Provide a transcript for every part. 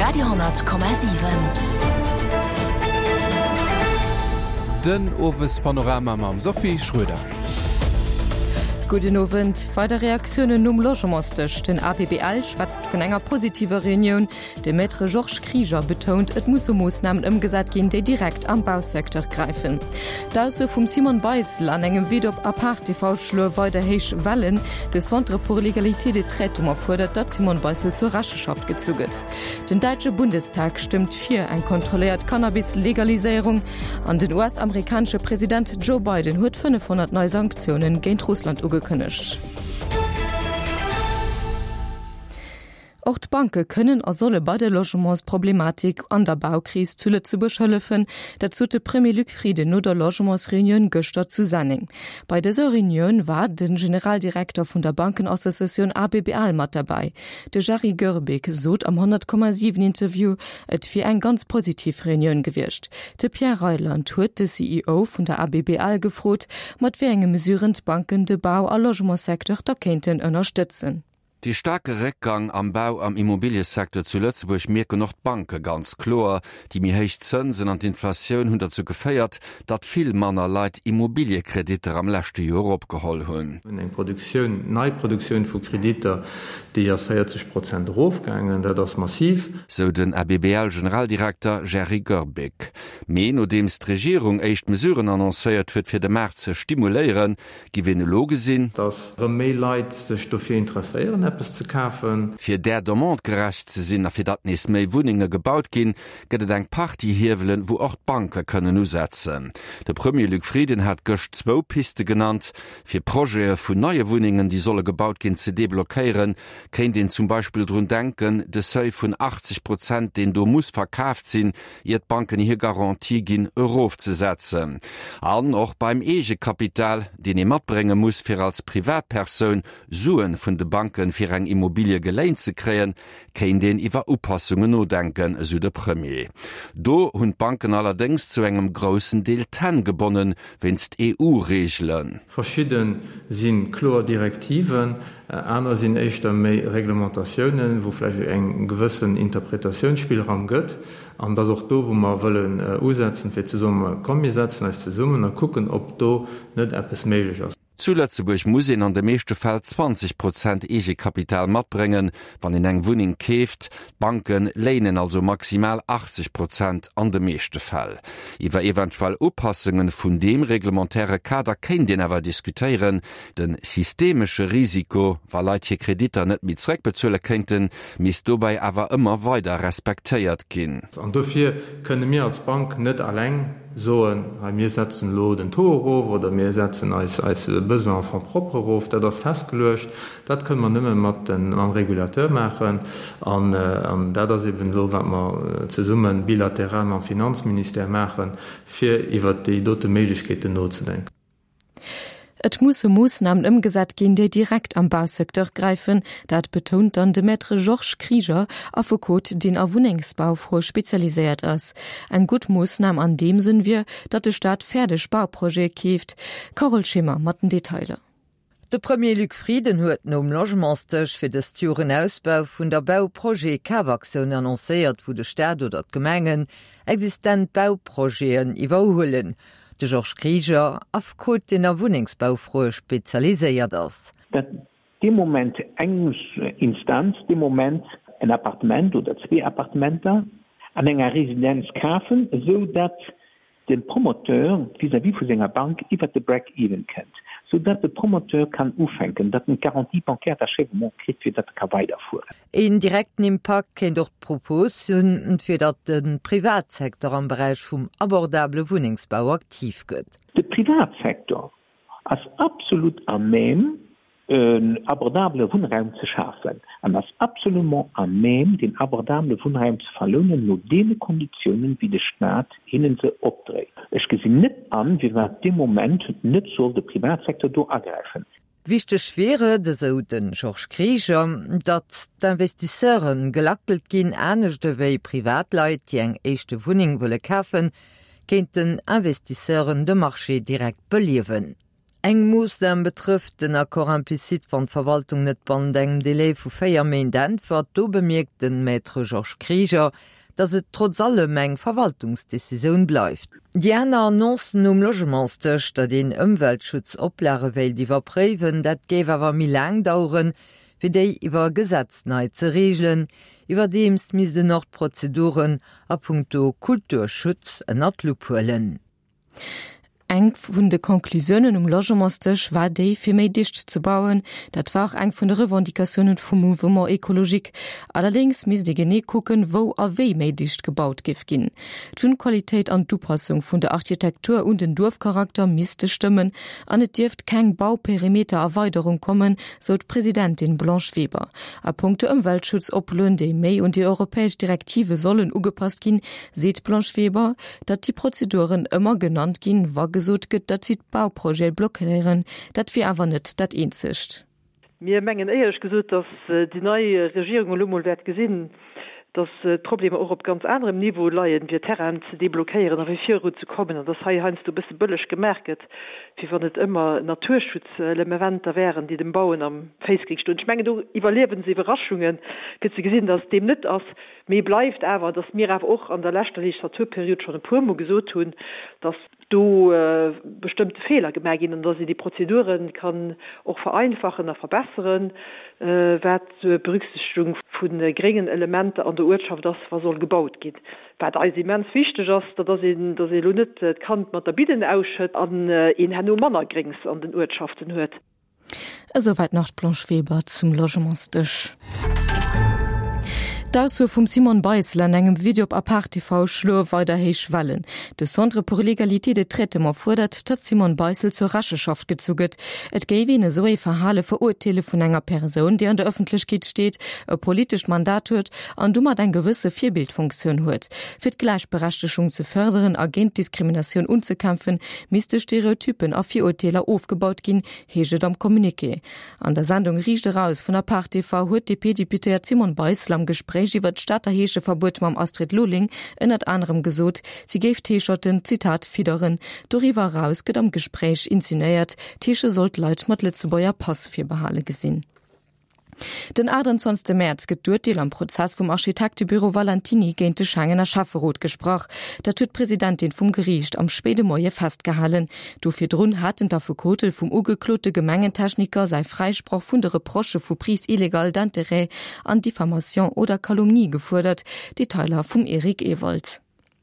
Radio,7. Den Owespanorama mam Sophie Schröder. Gudden Owend. Weider Reaktiounen nom Logementsdësch, Den ABBL schwätzt vun enger positiver Reunioun. De Maître Georges Krieger betount, et musse Moossnamen ëmgesat ginn, déi direkt am Bausecteur gräifen. D'Ausso vum Simone Beissel an engem Vid op Apart TV schloe weider héich Wellen. De Centre pour l'égalité des traitements fuerdert, datt d'Simone Beissel zur Recheschaft gezu gëtt. Den däitsche Bundestag stëmmt fir eng kontrolléiert Cannabis-Legaliséierung. An den US-amerikanesche President Joe Biden huet 500 nei Sanktioune géint Russland ugekënnegt. Och d'Banke kënnen a solle bei der Logementsproblematik an der Baukris zu Lëtzebuerg hëllefen. Dat sot de Premier Luc Frieden no der Logementsreunioun gëschter zu Senneng. Bei dëser Reunioun war de Generaldirekter vun der Bankenassociatioun ABBL mat derbäi. De Jerry Goerbeek sot am 100,7 Interview, et wier eng ganz positiv Reunioun gewiescht. De Pierre Reyland huet de CEO vun der ABBL gefrot, mat wéi enge Mesuren d'Banken de Bau a Logementssecteur da kéinten ënnerstëtzen. Dee staarke Réckgang am Bau am Immobiliësecteur zu Lëtzebuerg mierken och d'Banke ganz kloer. Déi méi héich Zënsen an d'Inflatioun hunn derzou geféiert, datt vill manner Leit Immobiliekreditter am leschte Joer opgeholl hunn. Eng Produktioun, nei Produktioun vu Kreditter, déi ass 40 Prozent erofgaangen. Dat ass massiv. Sou den ABBL-Generaldirekter Jerry Goerbeek. Mee nodeems d'Regierung éischt Mesuren annoncéiert huet, fir de Maart ze stimuléieren, Giff een elo gesinn. Dass rëm méi Leit sech dofir interesséieren eppes ze kafen. Fir där Demande gerecht ze sinn a fir datt nees méi Wunnenge gebaut ginn, gëtt et eng Partie Hiewelen, wou och d'Banke kënnen usetzen. De Premier Luc Frieden hat gëscht zwou Piste genannt. Fir Projete vun neie Wunnengen, déi solle gebaut ginn, ze deblockéieren, kéint een zum Beispill drun denken, de Seuil vun 80 Prozent, deen do muss verkaaft sinn, ier d'Banken hir Garantie ginn, erofzesetzen. An och beim Eegekapital, deen ee matbrénge muss, fir als Privatpersoun Suen vun de Banken fir eng Immobilie geléint ze kréien, kéint een iwwer Upassungen nodenken, esou de Premier. Do hunn d'Banken allerdéngs zu engem groussen Deel d'Hänn gebonnen, wéinst EU-Reegelen. Verschidde si kloer Direktiven, aner sinn éischter méi Reglementatiounen, wou vläicht eng gewëssen Interpretatiounsspillraum gëtt. An et ass och do, wou mer wëllen usetzen, fir ze soen, komm mir setzen eis zesummen a kucken, ob do net eppes méiglech ass. Zu Lëtzebuerg muss een an de meeschte Fäll 20 Prozent Eegekapital matbréngen, wann een eng Wunneng keeft. D'Banke léinen also maximal 80 Prozent an de meeschte Fäll. Iwwer eventuell Upassungen vun deem reglementaire Kader kéint een awer diskutéieren. De systemesche Risiko, wa Leit hir Kreditter net méi zeréckbezuele kéinten, misst dobäi awer ëmmer weider respektéiert ginn. An dofir kënne mir als Bank net alleng soen, hei mir setzen elo den Taux erof oder mir setzen eis eis Besoins en fonds propres erof. Dat ass festgeluecht. Dat kënne mer nëmme mat mam Régulateur maachen. An dat ass eben elo, wat mer zesumme bilateral mam Finanzministère maachen, fir iwwert déi dote Méiglechkeeten nozedenken. Et musse Moossnamen ëmgesat ginn, déi direkt am Bausecteur gräifen. Dat betount dann de Maître Georges Krieger, Affekot, deen a Wunnengsbaufroe spezialiséiert ass. Eng gutt Moossnam an deem Sënn wier, datt de Staat fäerdeg Bauprojete keeft. Carole Schimmer mat den Detailer. De Premier Luc Frieden huet nom Logementsdësch fir dëst Joer en Ausbau vun der Bauprojet-Kafaktioun annoncéiert, wou de Staat oder d'Gemengen existent Bauprojeten iwwerhuelen. De Georges Krieger, Affekot, deen a Wunnengsbaufroe spezialiséiert ass. Datt dee Moment eng Instanz dee Moment en Appartement oder zwee Appartementer an enger Residenz kafen, esou datt de Promoteur vis-à-vis vu senger Bank iwwert de Break-even kënnt, sou datt de Promoteur kann ufänken, datt en d'Garantie bancaire d'achèvement kritt, fir datt e ka weiderfueren. Een direkten Impakt kéint och d'Propos hunn, fir datt de Privatsecteur am Beräich vum abordabele Wunnengsbau aktiv gëtt. De Privatsecteur ass absolut à même, en abordabele Wunnraum ze schafen an ass absolument à même, deen abordabele Wunnraum ze verlounen no deene Konditiounen, wéi de Staat hinnen se opdréit. Ech gesinn net an, firwat dee Moment net soll de Privatsecteur do agräifen. Wichteg wier et, esou de Georges Krieger, datt d'Investisseure gelackelt ginn. Anescht ewéi Privatleit, déi eng éischte Wunneng wëlle kafen, kéinten Investisseuren de Marché direkt beliewen. Eng Moossnam betrëfft den Accord implicite, wann d'Verwaltung net bannent engem Delai vu 4 Méint äntwert. Do bemierkt de Maître Georges Krieger, datt et trotz allem eng Verwaltungsdecisioun bleift. Déi aner Annoncen um Logementsdësch, datt een Ëmweltschutzoplage wéilt iwwerpréiwen, dat géif awer méi laang daueren, wéi déi iwwer Gesetz nei ze reegelen. Iwwerdeems misst en och d'Prozeduren a punkto Kulturschutz ënner d'Lupp huelen. Eng vun de Conclusiounen um Logementsdësch war déi, fir méi dicht ze bauen. Dat war och eng vun de Revendicatiounen vum Mouvement écologique. Allerdéngs misst ee genee kucken, wou a wéi méi dicht gebaut géif ginn. D'Wunnqualitéit an d'Upassung vun der Architektur un den Duerfcharakter misste stëmmen an et dierft keng Bauperimetererweiderung kommen, sou d'Presidentin Blanche Weber. A punkto Ëmweltschutzoploen, déi méi un déi europäesch Direktive sollen ugepasst ginn, seet d'Blanche Weber, Datt déi Prozeduren ëmmer genannt ginn, wa gesot gëtt, datt si d'Bauprojete blockéieren, dat wier awer net dat eenzegt. Mir mengen éierlech gesot, datt déi nei Regierung elo mol wäert gesinn, datt d'Problemer och op ganz anerem Niveau leien, fir Terrainen ze deblockéieren a fir viruzekommen, an datt hei heiansdo e bësse bëlleg gemaach gëtt, wéi wann et ëmmer Naturschutzlemeventer wären, déi dem Bauen am Féiss géing stoen. Ech mengen, do iwwerliewe se Iwwerraschungen, fir ze gesinn, datt et deem net ass. Mee bleift awer, dass mir awer och an der leschter Legislaturperiod schonn e puermol gesot hunn, dass do bestëmmte Feeler gemaach ginn an dass een déi Prozedure kann och vereinfachen a verbesseren, wat d'Berücksichtegung vu gréngen Elementer an der Uertschaft ass, wa soll gebaut ginn. Wat eis immens wichteg ass, dat ass een, dass ee elo net d'Kand mat der Bidden ausschëtt an een herno manner Gréngs an den Uertschaften huet. Esouwäit nach d'Blanche Weber zum Logementsdësch. D'Ausso vum Simone Beissel an engem Video op Apart TV schloe weider héich Wellen. De Centre pour l'égalité de traitement fuerdert, datt d'Simone Beissel zur Recheschaft gezu gëtt. Et géif een esou ee Verhale verurteele vun enger Persoun, déi an der Ëffentlechkeet steet, e politescht Mandat huet an domat eng gewësse Virbildfunktioun huet. Fir d'Gläichberechtegung ze fërderen a géint Diskriminatioun unzekämpfen, misste Stereotypen a Virurteeler ofgebaut ginn, heescht et am Communiqué. An der Sendung Riicht eraus vun Apart TV huet d'DP-Deputéiert Simone Beissel am Gespréich iwwer d'Stater Heescheverbuet mam Astrid Lulling ënnert anerem gesot, si géif d'Heescherten, Zitat, fidderen. Doriwwer eraus gëtt am Gespréich insinuéiert, d'Heesche sollt Leit mat Lëtzebuerger Pass virbehale gesinn. Den 28 Mäerz gëtt d'Urteel am Prozess vum Architektebüro Valentiny géint de Schengener Schäfferot gesprach. Dat huet d'Presidentin vum Geriicht am spéide Moie festgehalen. Do virdrun haten d'Affekote vum ugeklote Gemengentechniker säi Fräisproch vun de Reprochë vu Prise illégale d'intérêts an Diffamation oder Calomnie gefuerdert. Detailer vum Eric Ewald.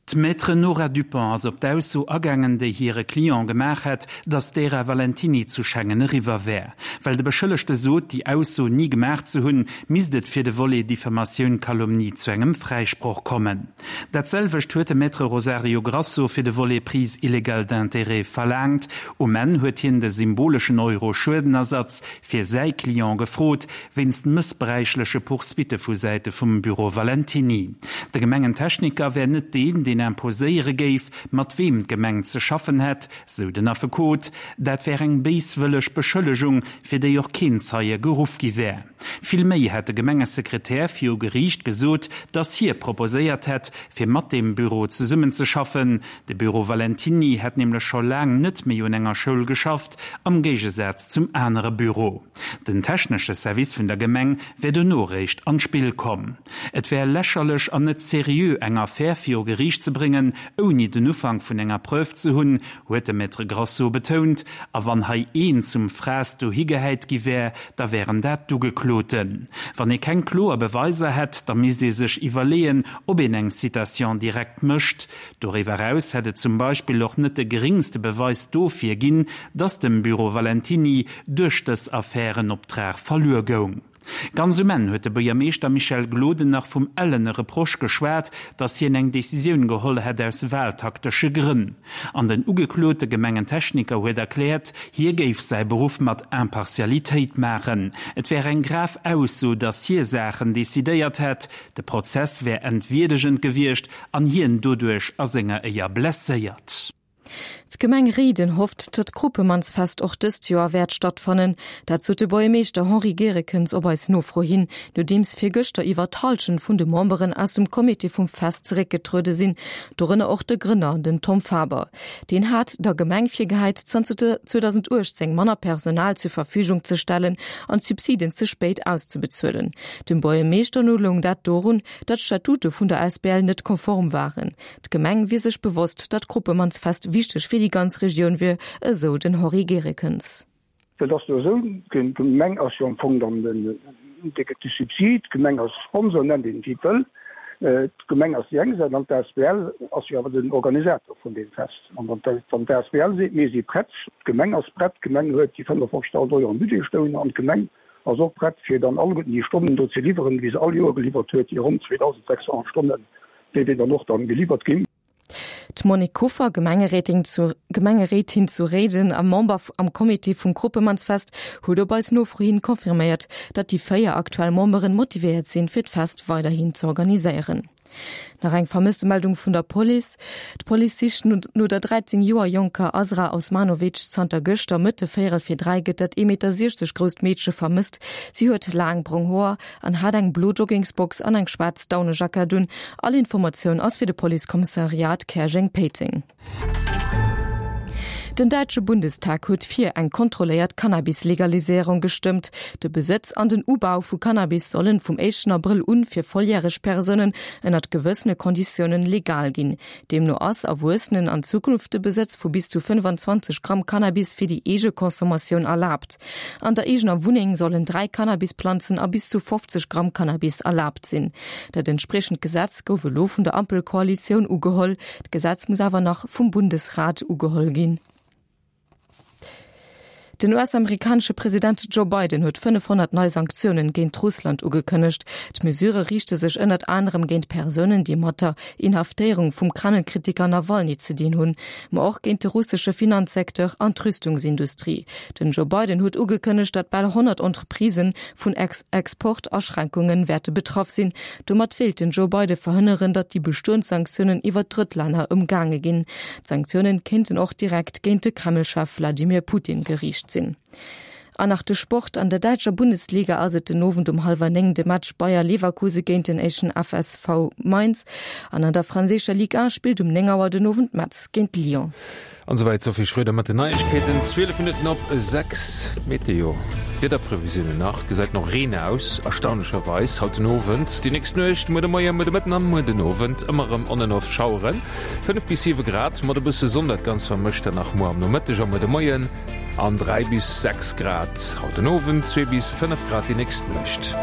D'Maître Nora Dupont ass op d'Ausso agaangen, déi hire Client gemaach hätt, datt d'Ära Valentiny zu Schengen eriwwer wär. Well de Beschëllegte sot, déi Ausso ni gemaach ze hunn, misst et fir de Volet Diffamatioun-Calomnie zu engem Fräisproch kommen. Dat selwecht huet de Maître Rosario Grasso fir de Volet Prise illégale d'intérêts verlaangt. Um Enn huet hien de symboleschen Euro Schuedenersatz fir säi Client gefrot, wéinst mëssbräichleche Poursuitte vu Säite vum Büro Valentiny. De Gemengentechniker wär net deen, deen imposéiere géif, mat weem d'Gemeng ze schaffen hätt, sou den Affekot. Dat wär eng béiswëlleg Beschëllegung, fir déi och keen Zeie geruff gi wär. Vill méi hätt de Gemengesekretär viru Geriicht gesot, datt hie proposéiert hätt, fir mat deem Büro zesummenzeschaffen. De Büro Valentiny hätt nämlech scho laang net méi un enger Schoul geschafft, am Géigesaz zum anere Büro. Den technesche Service vun der Gemeng wär dono réischt an d'Spill komm. Et wär lächerlech an net seriö eng Affär viru Geriicht ze bréngen, ouni den Ufank vun enger Preuve ze hunn, huet de Maître Grasso betount. A wann hei een zum Fraass dohi gehäit gi wär, da wären dat d'Ugekloten. Wann ee keng kloer Beweiser hätt, da misst ee sech iwwerleeën, ob een eng Citation directe mécht. Doriwwer eraus hätt et zum Beispill och net de geringste Beweis dofir ginn, datt dem Büro Valentiny duerch dës Affär en Optrag verluer goung. Ganz um Enn huet de Buergermeeschter Michel Gloden nach vum ellene Reproche geschwat, datt hien eng Decisioun geholl hätt aus wahltaktesche Grënn. An den ugeklote Gemengentechniker huet erkläert, hie géif säi Beruff mat Impartialitéit maachen. Et wär eng grav Ausso, datt hie Saachen decidéiert hätt, de Prozess wär entwierdegend gewiescht an hien doduerch a senger Éier blesséiert. D'Gemeng Réiden hofft, datt d'Kropemannsfest och dëst Joer wäert stattfannen. Dat sot de Buergermeeschter Henri Gerekens op eis Nofro hin, nodeems virgëschter iwwer d'Hallschent vun de Memberen aus dem Comité vum Fest zeréckgetruede sinn, dorënner och de Grënner, den Tom Faber. Deen hat der Gemeng virgehäit, zanter 2018 manner Personal zur Verfügung ze stellen an d'Subsiden ze spéit auszebezuelen. Dem Buergermeeschter no loung dat dorun, datt d'Statute vun der Asbl net konform waren. D'Gemeng wier sech bewosst, datt d'Kruppemannsfest wichteg fir déi ganz Regioun wier, esou den Henri Gerekens. Et ass jo esou, d'Gemeng ass jo am Fong dann den, dee gëtt de Subsid, d'Gemeng ass Sponsor, nennt een et wéi et wëll. D'Gemeng ass déi eng Säit an d'ASBL ass jo awer den Organisator vun deem Fest. An wann d'ASBL seet, mir si prett, d'Gemeng ass prett, d'Gemeng huet déi 55.000 Euro am Budget stoun an d'Gemeng ass och prett, fir dann alleguerten déi Stonnen do ze liwweren, wéi se all Joer geliwwert huet, déi ronn 2.600 Stonnen, déi déi dann och dann geliwwert ginn. D'Monique Kuffer, Gemengeréitin zu Gemengeréitin zu Réiden a Member am Comité vum Kruppemannsfest, huet op eis Nofro hin confirméiert, datt déi 4 aktuell Memberen motivéiert sinn, fir d'Fest weiderhin z'organiséieren. Nach eng Vermësstemeldung vun der Police. D'Police sicht no der 13 Joer jonker Azra Osmanovic. Zanter gëschter Mëtte véierel fir 3 gëtt dat 1,60 Meter grousst Meedche vermësst. Si huet laang brong Hoer an hat eng blo Joggingsbox an eng schwaarz Daunejackett un. All Informatioun ass fir de Policekommissariat Käerjeng-Péiteng. Den däitsche Bundestag huet fir eng kontrolléiert Cannabis-Legaliséierung gestëmmt. De Besëtz an den Ubau vu Cannabis sollen vum éischten Abrëll un fir volljäreg Persounen ënnert gewëssene Konditiounen legal ginn. Deemno ass Erwuessenen an Zukunft de Besëtz vu bis zu 25 Gramm Cannabis fir déi eege Consommatioun erlaabt. An der eegener Wunneng sollen 3 Cannabisplanzen a bis zu 50 Gramm Cannabis erlaabt sinn. Dat entspriechend Gesetz gouf elo vun der Ampelkoalitioun ugeholl. D'Gesetz muss awer nach vum Bundesrat ugeholl ginn. Den US-amerikanesche President Joe Biden huet 500 nei Sanktiounen géint Russland ugekënnegt. D'Mesurë riichte sech ënnert anerem géint Persounen, déi mat der Inhaftéierung vum Kreml-Kritiker Nawalny ze dinn hunn, ma och géint de russesche Finanzsecteur an d'Rüstungsindustrie. Den Joe Biden huet ugekënnegt, datt bal 100 Entreprisë vun Exportaschränkunge wäerte betraff sinn. Domat wéilt den Joe Biden verhënneren, datt déi bestoend Sanktiounen iwwer Drëttlänner ëmgaange ginn. D'Sanktiounen kéinten och direkt géint de Kreml-Chef Wladimir Putin geriicht sinn. An nach de Sport, An der däitscher Bundesliga ass et den Owend um hallwer 9 de Match Bayer Leverkuse géint den éischten FSV Mainz. An an der franséischer Ligue 1 spillt um 9 Auer den Owend Metz géint Lyon. An esouwäit d'Sophie Schröder mat den Neiegkeeten. 12 Minutten op 6, d'Meteo, d'Wiederprevisiounen nach. Et gesäit no Reen aus, erstaunlecherweis haut den Owend. Déi nächst Nuecht, muer de Moien, muer de Mëtten an muer den Owend ëmmer erëm on en off Schaueren. 5 bis 7 Grad mat e bësse Sonn, dat Ganzt vermëscht dann nach muer am Nomëtteg a muer de Moien. An 3 bis 6 Grad haut den Owend, 2 bis 5 Grad déi nächst Nuecht.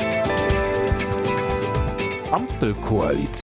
Ampelkoalitioun.